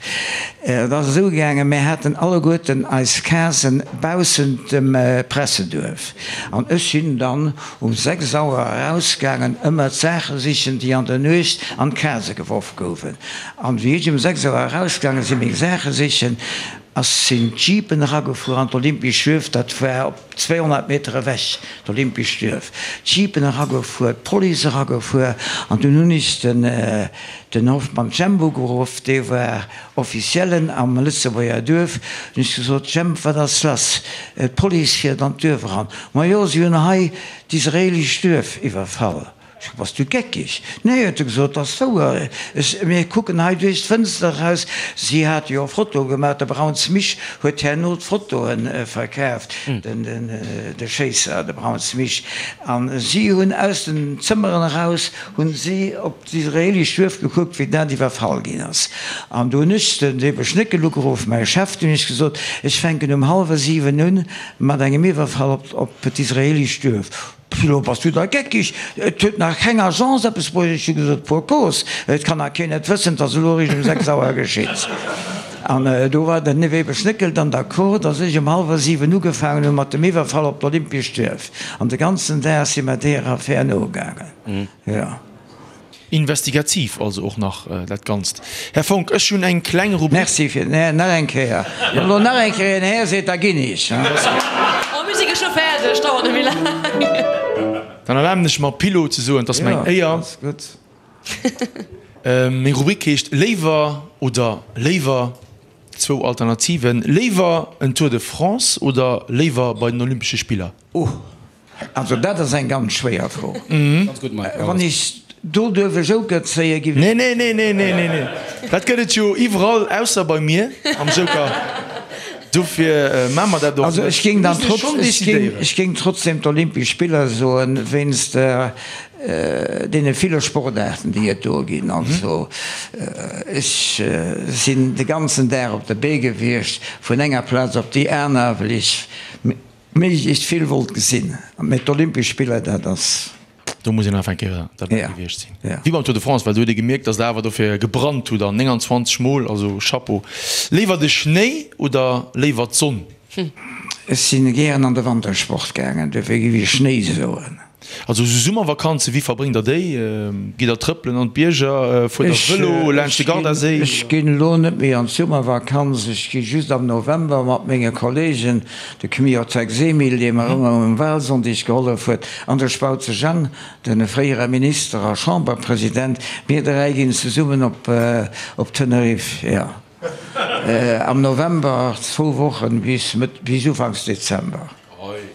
Et ass esou gaangen, mir haten alleguerten eis Casen baussent dem Presseduerf an ech sinn dann um 6 Auer erausgaangen ëmmer d'Saache sichen, déi an der Nuecht an d'Case geworf gouwen. An wéi ech um 6 Auer erausgaange sinn, meng Saache sichen, ass sinn d'Jeepen eragefuer an d'Olympesch Duerf, dat war op 200 Meter ewech, d'Olympesch Duerf, d'Jeepen eragefuer, d'Police eragefuer an dunn hunn ech den den Hoffmann Jemp ugeruff, dee war Officiellen am Lëtzebuerger Duerf, hunn ech gesot, Jemp, wat ass lass, d'Police fiert an d'Duerf eran. Majo, si hunn hei d'israeelescht Duerf iwwerfall. Ech so, Bass du geckeg? Nee, huet e gesot, dat ass wouer. Ech, mir kucken hei duerch d'Fënster eraus. Si hate jo Fotoe gemaach, de Brauns Misch huet herno d'Fotoe verkaaft, den, den, de Schéisser, de Brauns Misch. A si hunn aus den Zëmmeren eraus, hunn si op d'israeelesch Duerf gekuckt, wéi dat iwwerfall ginn ass. An do hunn ech den Weber Schnéckel ugeruff, mäi Chef, du hunn ech gesot, ech fänken um hallwer 7 un mat engem Iwwerfall op, op d'israeelesch Duerf. Pilo, bass du da geckig? Et huet nach keng Agence eppes bruecht. Ech hu gesot, Pour cause, et kann nach keen et wëssen, et ass elo eréischt um 6 Auer geschitt. An do war den Weber Schnéckel dann d'accord, dass ech um hallwer 7 ugefaangen hu mat dem Iwwerfall op d'Olympiescht Duerf. An de ganzen Dag si mer deeër Affär nogaangen. Jo. Investigativ also och nach dat Ganzt. Här Fonck, ech hunn eng kleng Rubrik. Merci fir den Här. Nach eng Kéier. Wann elo nach eng Kéier een Här seet, da ginn ech. Oh, mir si geschwë fäerdeg, dauert net méi laang. Dann erlaben ech mer, Pilo ze soen, 't ass meng Éier. Jo, ass gutt. Meng Rubrik heescht Léiwer oder léiwer. Zwou Alternativen, Léiwer en Tour de France oder léiwer bei den Olympesche Spiller? Oh, Also dat ass eng ganz schwéier Fro. Wann ech do duerf e Joker zéien, giff ech. Nee, nee, nee, nee, nee, nee, nee. Dat gëtt et jo iwwerall, ausser bei mir am Joker. Dofir maache mer dat och Also ech géing dann trotz, ech géing, ech géing trotzdem d'Olympesch Spiller soen, wéinst deene ville Sportaarten, déi et do ginn. Also ech sinn de ganzen Dag op de Bee gewiescht, vun enger Plaz op déi aner, well ech Méiglechst vill wollt gesinn. Mee d'Olympesch Spiller, dat ass. Do muss een einfach eng Kéier derbäi gewiescht sinn. Wéi beim Tour de France, well do huet ee gemierkt, datt der awer dofir gebrannt hutt an 29 Mol, also Chapeau. Léiwer de Schnéi oder léiwer d'Sonn? Ech sinn gären an de Wantersport gaangen, dofir géif ech Schnéi soen. Also esou Summervakanzen, wéi verbréngt der déi? Gitt der trëppelen an d'Bierger, fuert der Vëlo laanscht de Gardaséi? Ech ginn elo net méi an d'Summervakanz, ech gi just am November mat menge Kollegen, de Kmiotek Semil, dee mer ëmmer um Wahlsonndeg gehollef huet, an de Spautze Jang, de fréiere Minister a Chamberpresident, mir 3 ginn zesummen op Tenerife, jo, am November, zwou Wochen bis Mëtt, bis Ufanks Dezember.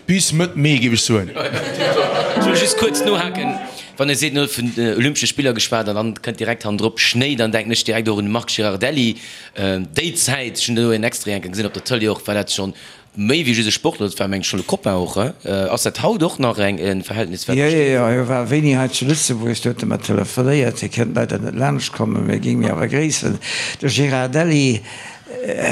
Bis Mëtt Mee, géif ech soen. Ech wëll just kuerz nohaken, wann e seet, en huet vun den Olympesche Spiller geschwat an dann kënnt direkt hannendrop Schnéi, dann denken ech direkt och un de Marc Girardelli. Déi Zäit, ech hunn do en Extrait eng Kéier gesinn op der Tëlee och, war dat schonn méi wéi just e Sportler, dat war meng ech schonn e Copain och. Ass dat haut och nach eng e Verhältnis wat Jo, jo, besteet? jo, hie war wéini hei zu Lëtzebuerg, do huet e mer telefonéiert. Hie kënnt leider net laanscht kommen, mä géing mir awer gréissen. De Girardelli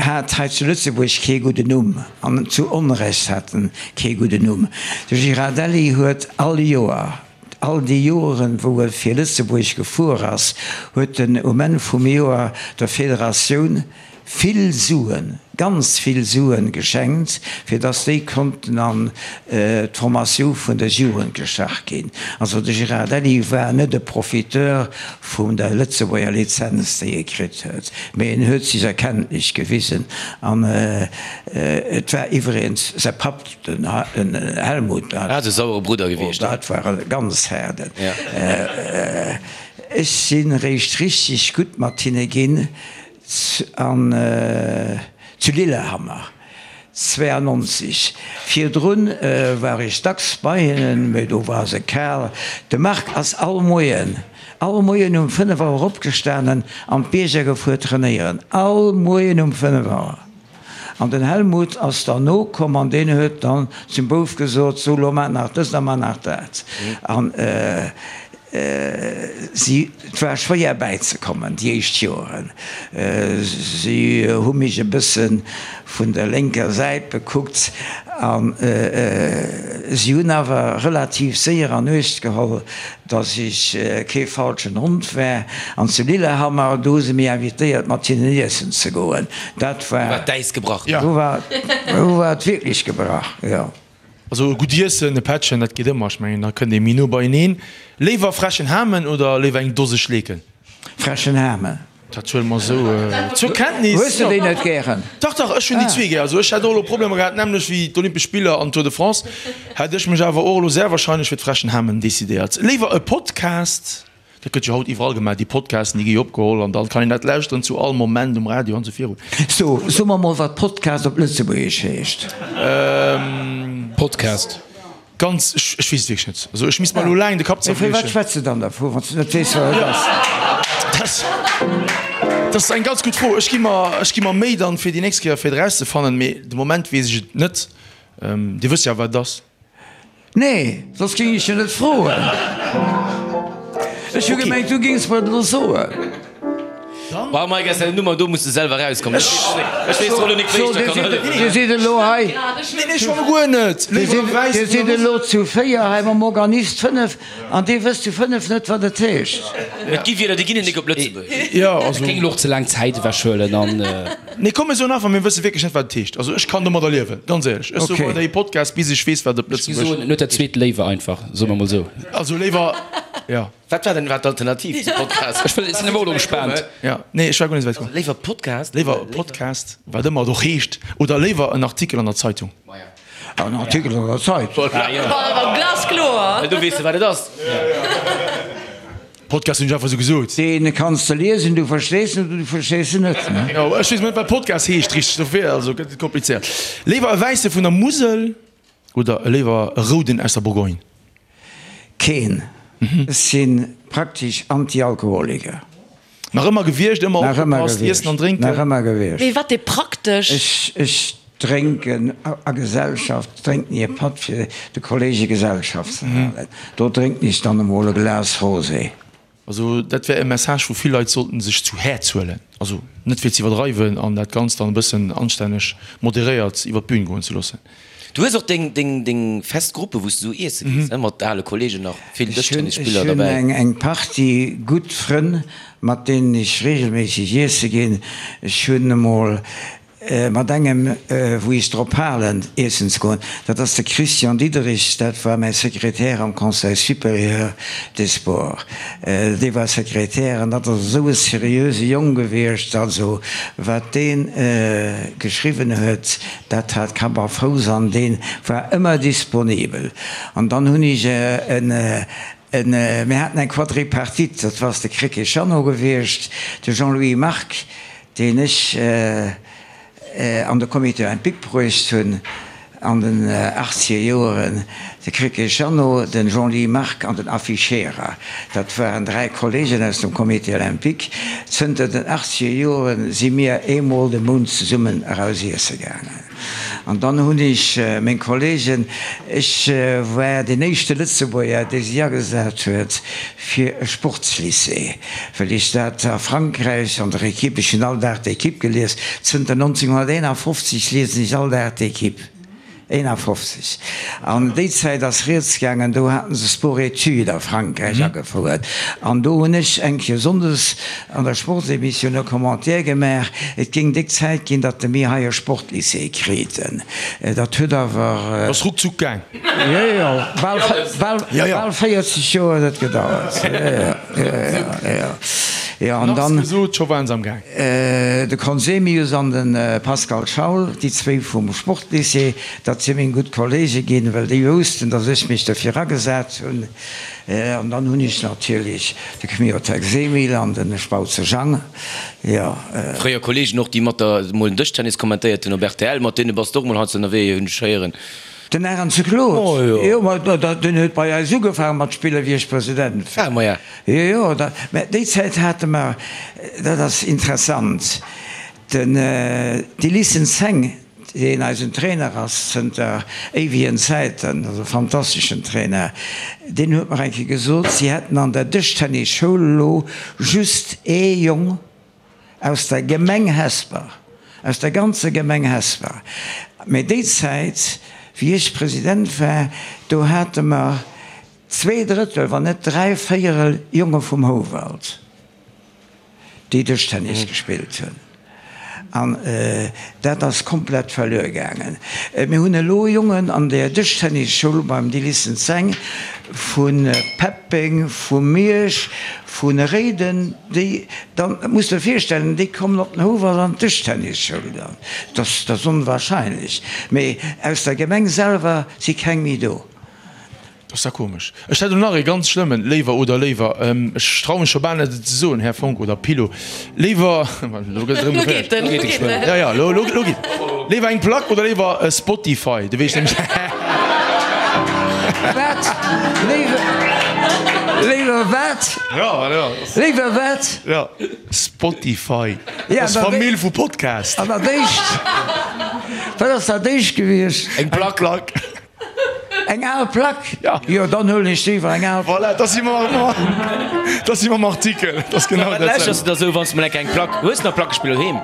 hat hei zu Lëtzebuerg kee gudden Numm, an zu Onrecht hat en kee gudden Numm. De Girardelli huet all Joer, all déi Joeren, wou e fir Lëtzebuerg gefuer ass, huet en um Enn vum Joer der Federatioun vill Suen, ganz vill Suen geschenkt, fir dass déi konnten an d'Formatioun vun der Jugend gestach ginn. Also de Girardelli war net e Profiteur vun der Lëtzebuerger Lizenz, déi e kritt huet, mee en huet sech erkenntlech gewisen. An et war iwwregens säi Papp, den Helmut, dat e sauere Brudder gewiescht. Dat war e ganz haarden. Ech si réischt richteg gutt mat hinne ginn an zu Lillehammer 92. Virdrun war ech dacks bei hinnen, mee do war se kal. De Marc ass all Moien, all Moien um 5 Auer opgestanen an d'Bierger gefuer trainéieren. All Moien um 5 Auer. An den Helmut ass dann nokomm an deen huet dann zum Bouf gesot, So, lo maach nach dëst a maach nach dat. An Si, et war schwéier bäizekommen déi éischt Joeren. Si hu mech e bësse vun der lénker Säit bekuckt an si hunn awer relativ séier an Uecht geholl, datt ech kee falschen Hond war. An zu Lillehammer, do hu se mech invitéiert mat hinnen iessen ze goen. Dat war. Do war d'Äis gebrach. Do war, do war et wierklech gebrach, jo. Also e gutt Iessen, e Pättchen, dat geet ëmmer. Ech mengen, da kënnt ee méi no beieneen. Léiwer frechen Hamen oder léiwer eng Dose Schleeken? Frechen Hamen. Dat huele mer esou zur Kenntnis. Hues de déi net gären? Dach, dach, ech hunn déi zwee gär. Also ech hätt och elo Problemer gehat, d'nämmlecht wéi d'Olympesch Spiller an d'Tour de France, hätt ech mech awer och elo sehr wahrscheinlech fir d'frechen Hamen decidéiert. Léiwer e Podcast Dat gëtt jo haut iwwerall gemaach, déi Podcasten, déi gi jo opgeholl an dann kann een dat lauschteren zu all Moment um Radio an esou virun. So, so mer mol wat Podcast op Lëtzebuergesch heescht. Podcast. Ganz, ech, ech weess et wierklech net. Also ech misst mer elo laang de Kapp Mee firwat zerbriechen. schwätz de dann dervu, wann s de net weess wat et ass? Dat, dat ass eng ganz gutt Fro. Ech gi mer, ech gi mer Méi dann fir déi nächst Kéier fir et erauszefannen, mee de Moment weess ech et net. Dir wësst jo awer wat et ass. Nee, soss géing ech jo net froen. Ech hu gemengt, du géings mer et elo soen. Bah, Mike, aus denger Nummer do muss de selwer erauskommen. Ech weess elo nik, wéi ech der kann hëllefen. Dir sidd elo hei. Nee, nee, schonn guer net. Dir sidd elo zu 4 hei mam Organist 5 an dir wësst zu 5 net, wat et heescht. Et gi Wierder, déi ginn et nik op Lëtzebuergesch. Jo, also. Et géing elo och ze laang Zäit ewechhuelen an. Nee, komm mir soen einfach, mir wësse wierklech net, wat et heescht. Also ech kann domadder liewen, ganz éierlech. Ech soe weiderhi Podcast, bis ech weess, wat op Ech gi soen, Lëtzebuerg. en huet dat zweet léiwer einfach, soe mer mol esou. Also léiwer, jo. Wat war denn war d'Alternativ zu Podcast? Ech wëll, sinn awer och elo gespaant. Jo, nee, ech war guer net esou wäit komm. Léiwer Podcast? Léiwer Podcast, wat ëmmer et och heescht, oder léiwer en Artikel an der Zeitung? En Artikel an der Zeitung. Glaskloer! Du weess de, wat et ass. Podcast hunn ech einfach sou gesot. Deen kanns de liesen, du verstees en oder du verstees en net. Jo, ech weess net wat Podcast heescht richteg, dofir also gëtt et komplizéiert. Léiwer e wäisse vun der Musel oder léiwer e rouden aus der Bourgogne? Keen. Ech si praktesch Anti-Alkoholiker. Nach ëmmer gewiescht, ëmmer opgepasst, iessen an drénken? Nach ëmmer gewiescht. Mee wat dee praktesch. Ech drénken a Gesellschaft, drénken ech e Patt fir de Kollege Gesellschaft ze halen. Do drénken ech dann emol e Glas Rosé. Also dat wär e Message wou vill Leit sollten sech zu Häerz huelen. Also net fir ze iwwerdreiwen an dat Ganzt dann e bëssen anstänneg moderéiert iwwer d'Bühn goen ze loossen. Du hues och deng deng deng fest Gruppe wou s du iesse gees, ne, mat ale Kollegen nach vill Ech hunn Dëschtennisspiller ech hunn derbäi. eng eng Partie gutt Frënn mat deenen ech regelméisseg iesse ginn. Ech hunn emol. Mat engem, wou ech drop halen, iessen ze goen, dat ass de Christian Diederich, dat war mäi Sekretär am Conseil supérieur des sports. Dee war Sekretär an dat ass esou e seriöse Jong gewiescht. Also wat dee geschriwwen huet, dat hat Kapp a Fouss an dee war ëmmer disponibel. An dann hunn ech en, en, mir haten eng Quadripartite, dat ass de Krecké Jeannot gewiescht, de Jean-Louis Margue, deen ech an de Comité olympique bruecht hunn an den achtzeger Joeren, de Krecké Jeannot, den Jean-Louis Margue an den Affi Scherer, dat waren dräi Kollegen aus dem Comité olympique. Zënter den achtzeger Joere si mir eemol de Mount zesummen eraus iesse gaangen. An dann hunn ech meng Kollegen, ech war deen éischte Lëtzebuerger, dee sech agesat huet fir e Sportslycée, well ech dat a Frankräich an der Equipe, ech hunn all Dag d'Equipe gelies, zënter 1951 liesen ech all Dag d'Equipe, 51, an déi Zäit ass rieds gaangen, do haten se Sport-Études a Frankräich agefouert an do hunn ech eng Kéier sonndes An der Sportsemissioun e Commentaire gemaach, et géing déck Zäit ginn, datt de mir hei e Sportlycée kriten. Dat huet awer. Ass ruckzuck gaang. Jo, jo, bal, bal, bal 40 Joer huet et gedauert. Jo, jo, jo, jo. An dann. Nach gesot, scho waren se am gaang. De Conzemius an de Pascal Schaul, déi zwéi vum Sportlycée, dat si meng gutt Kollege ginn, well déi woussten, datt ech mech dofir agesat hunn. An dann hunn ech natierlech de Kmiotek Semil an de Spautze Jang, jo. Fréier Kollegen och, déi mat der mol den Dëschtennis kommentéiert hunn op rtl, mat deene bass de och mol heiansdo ënnerwee, hunn ech héieren. Den Arendse Claude, jo, ma deen huet bei eis ugefaange mat spillen, wéi ech President war. Ah, maja. Jo, jo, da, mä déi Zäit hate mer, dat ass interessant, den Delissen Zeng, deen eisen Trainer ass zënter éiwegen Zäiten, ass e fantasteschen Trainer, deen huet mer eng Kéier gesot, si hätten an der Dëschtennis-Schoul elo just ee Jong aus der Gemeng Hesper, aus der ganzer Gemeng Hesper. Mee déi Zäit, wéi ech President war, do hate mer zweedrëttel, wann net dräivéierel Jonge vum Houwald. déi Dëschtennis gespillt hunn, an dat ass komplett verluer gaangen. Mir hunn elo Jongen an der Dëschtennisschoul beim Dilissen Zeng vu Peppeng, vu Miersch, vu Réiden, déi dann, muss der virstellen, déi kommen op den Houwald an d'Dëschtennisschoul dann. Dat ass onwahrscheinlech, mee aus der Gemeng selwer si keng méi do. Dat ass da komesch. Ech hätt elo nach ee ganz schlëmmen Léiwer oder léiwer, ech traue mech scho bal net et ze soen, Här Fonck oder Pilo, léiwer, elo gëtt et erëm geféierlech, Lo geet en, lo geet en. Jo, jo, lo, lo, lo geet et. Léiwer eng Plack oder léiwer e Spotify? Du weess nämlech. Wat? Léiwer, léiwer wat? Jo, jo. Léiwer wat? Jo, Spotify. Dat ass d'Famill vu Podcast. An dat éischt, wat ass dat éischt gewiescht? Eng Plack. Eng al Plack? Jo, dann huelen ech léiwer eng al Plack. Voilà, da si mer, da si mer am Artikel. Dat ass genau dat. Wat lauschters de da sou, wann s de mol enk eng Plack hues? Nach Plackespiller doheem?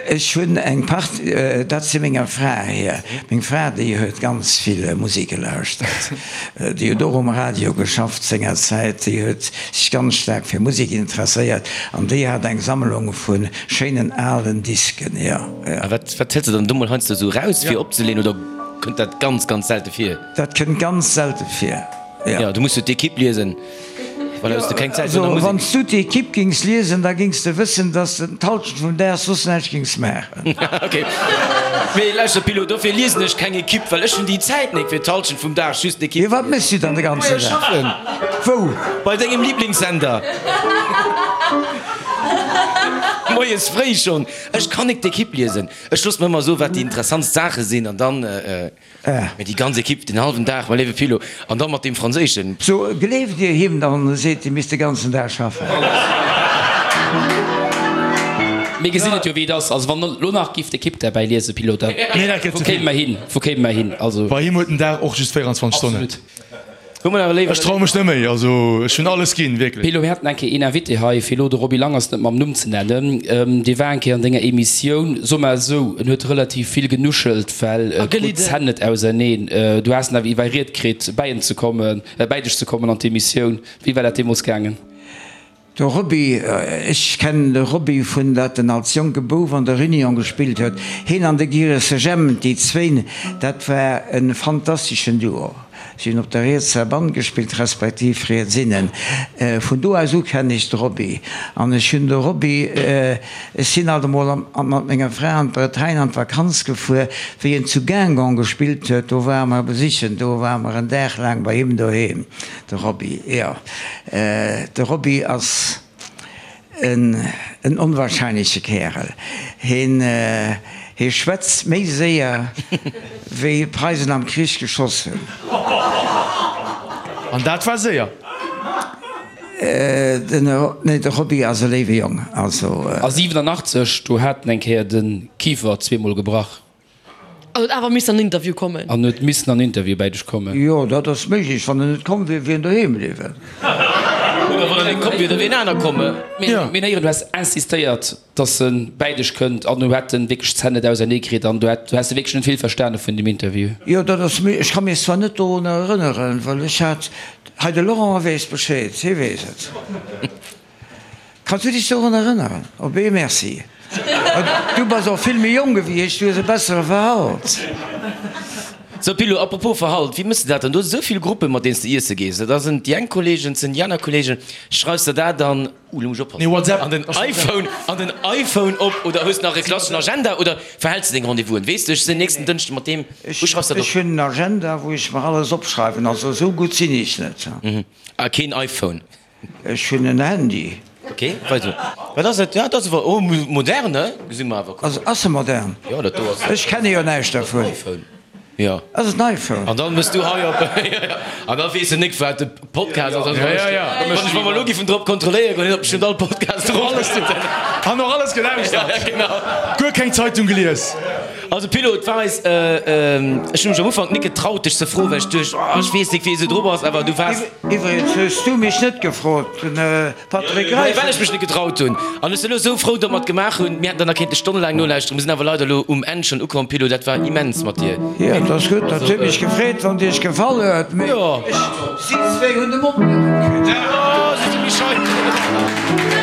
Ech hunn eng Part, dat si menger Fra hir. Meng Fra, déi huet ganz vill Musek gelauschtert. Déi huet och um Radio geschafft sengerzäit. Déi huet sech ganz staark fir Musek interesséiert an déi hat eng Sammlung vu schéinen alen Disken, jo. A wat wat hëls de dann do mol heiansdo esou raus fir opzeleeën oder kënnt dat ganz ganz selte vir? Dat kënnt ganz selte vir, jo. Jo, du muss jo d'Equipe liesen, voilà, hues de keng Zäit no der Also Musek. wann s du d'Equipe gings liesen, da gings de wëssen, dass de d'Halschent vum Dag soss näischt gings maachen. Ok, mee lauschter Pilo, dofir liesen ech keng Equipe, well ech hunn déi Zäit nik fir d'Halschent vum Dag just d'Equipe Jo, wat méchs du dann de ganzen Majo, Dag? schaffen. Wou? Bei dengem Lieblingssender. Moies fréi schonn. Ech kann nik d'Equipe liesen. Ech loosse mer ëmmer soen, wat déi interessantst Saache sinn, an dann, mee déi ganz Equipe den hallwen Dag, mein léiwe Philo, an dann mat deem Franséischen. So, gleeft Dir him dann, en seet, Dir misst de ganzen Dag schaffen? Mir gesinn et jo, wéi et ass. Also wann elo nach giff d'Equipe derbäi liesen, Philo, da wou kéime mer hin? Wou kéime mer hin? Also. Bei him huet den Dag och just 24 Stonnen. Absolut. Ech traue mech net méi, also ech hunn alles ginn, wierklech. Pilo, mir haten eng Kéier een Invité hei, fir elo de Roby Langers net mam Numm ze nennen, dee war eng Kéier an denger Emissioun, soe mer esou, en huet relativ vill genuschelt, well e krut d'Zänn net auserneen. Du has en awer iwwerriet kritt, bäi en ze kommen, bäi dech ze kommen an d'Emissioun. Wéi war dat deemools gaangen? De Roby, ech kennen de Roby vun dat en als jonke Bouf an der Réunion gespillt huet. Heen an de Giresse Jemp, déi zwéin, dat war e fantasteschen Duo. Si hunn op der rietser Band gespillt, respektiv riets innen. Vun do aus u kennen ech de Roby. An ech hunn de Roby, ech sinn alt emol mat menger Fra an d'Bretagne an d'Vakanz gefuer, wéi en zu Guingamp gespillt huet, do ware mer e besichen, do ware mer en Dag laang bei him doheem. De Roby, jo. De Roby ass en onwahrscheinleche Kärel. Hien, hie schwätzt méi séier wéi d'Preisen am Krich geschoss hunn. An dat war séier. Den, nee, de Roby ass e léiwe Jong, also. A 87, do hat en eng Kéier de Kifer zweemol gebrach. An huet awer missen an den Interview kommen. An huet missen an den Interview bäi dech kommen. Jo, dat ass méiglech. Wann en net komm wier, wier en doheem bliwwen. Oder wann en net komm wier, da wier en aner komm. Mir hunn héieren, du häss insistéiert, dass e bäi dech kënnt an du hätt en wierklech d'Zänn net ausernee kritt an du hätt, du häss wierklech net vill verstane vun dem Interview. Jo, dat ass méi, ech ka mech zwar net dorunner erënneren, well ech hat, hei de Laurent weess Bescheed, hie weess et. Kanns du dech dorun erënneren? Op ee Merci. Du bass och vill méi jonk ewéi ech, du hues e bessere Verhalt. Sou Pilo, apropos Verhalt, wéi mëss de dat dann? Du hues esou vill Gruppen, mat deenen s de iesse gees. Da sinn déi eng Kollegen, et sinn déi aner Kollegen. Schreifs de dat dann, uh, lo muss ech oppassen, an den iPhone, an den iPhone op oder hues nach e klasseschen Agenda oder verhäls de deng Rendez-vousen? Weess de, ech sinn nächsten Dënschde mat deem, wou schreifs de dat op? Ech hunn en Agenda, wou ech mer alles opschreiwen. Also esou gutt sinn ech net. A keen iPhone? Ech hunn en Handy. Ok, weider. Wat ass dat? Ja, dat ass awer, oh, modern, he? Gesi mer awer. Ass, ass e modern? Jo, dat do ass. Ech kenne jo näischt dervun. IPhone. Jo. Ass et en iPhone? An dann mëss du hei op, jo, jo. An da weess en nik, wat de Podcast ass. Ja, ja, ja. Wann ech, wa mer elo giffen drop kontrolléiere goen, hien huet bestëmmt all Podcast drop. Alles, han och alles gelauschtert. Ja, genau. Guer keng Zeitung gelies. Also Pilo, et war eis, ech hunn mech am Ufank nik getraut dech ze froen, well ech duecht, oh, ech weess nik, wéi esou drop ass, awer du waars. Iwwregens hues du mech net gefrot, den Patrick Reichel. Well ech mech net getraut hunn. An ech sinn elo esou frou, datt mer et gemaach hunn. Mir hätten der nach kéinte stonnelaang nolauschteren. Mir sinn awer leider elo um Enn schonn ukomm, Pilo. Dat war immens mat dir. Jo, dat ass gutt. Dat huet mech gefreet, wann et iech gefall huet. Mee ech, si zwéi hunn de Mond net opkritt. Oh, si si méi schei.